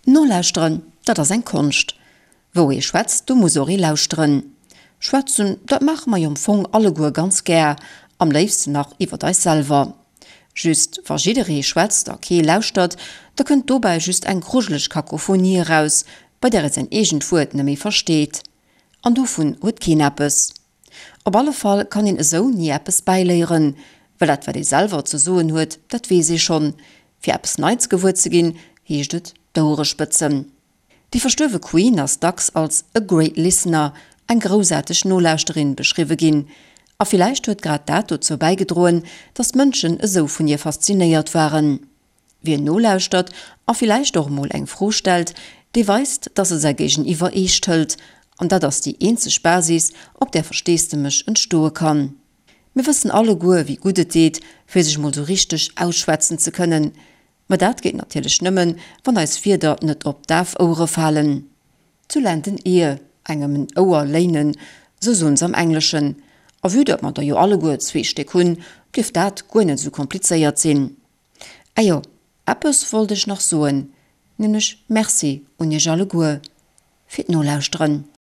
Nolauschteren, dat ass eng Konscht. Wou ee schwätzt, do muss och ee lauschteren. Schwätzen, dat maache mer jo am Fong alleguer ganz gär, am léifsten nach iwwert eis selwer. Just, wa jidderee schwätzt a kee lauschtert, da kënnt dobäi just eng grujeleg Kakophonie eraus, bei där ee säin eegent Wuert net méi versteet. An dovun huet keen eppes. Op alle Fall kann een esou ni eppes bäiléieren, well dat wat ee selwer ze soen huet, dat weess ee schonn. Fir eppes Neits gewuer ze ginn, heescht et d'Ouere spëtzen. Déi verstuerwe Queen ass dacks als a great listener, eng groussaarteg Nolauschterin, beschriwwe ginn. A villäicht huet grad dat dozou bäigedroen, datt d'Mënschen esou vun hir faszinéiert waren. Wien nolauschtert a villäicht och emol eng Fro stellt, dee weist, dass e säi Géigeniwwer eescht hëlt. An dat ass déi eenzeg Basis, op där Versteesdemech entstoe kann. Mir wëssen alleguer, wéi gutt et deet, fir sech mol sou richteg ausschwätzen ze kënnen. Mä dat geet natierlech nëmmen, wann eis Wierder net op daf Ouere falen. To lend an ear, engem en Ouer léinen, sou soen se am Engleschen. A vue datt mer der jo alleguer zwee Stéck hunn, dierft dat guer net sou komplizéiert sinn. Ajo, eppes wollt ech nach soen, nämlech Merci un iech alleguer fir d'Nolauschteren.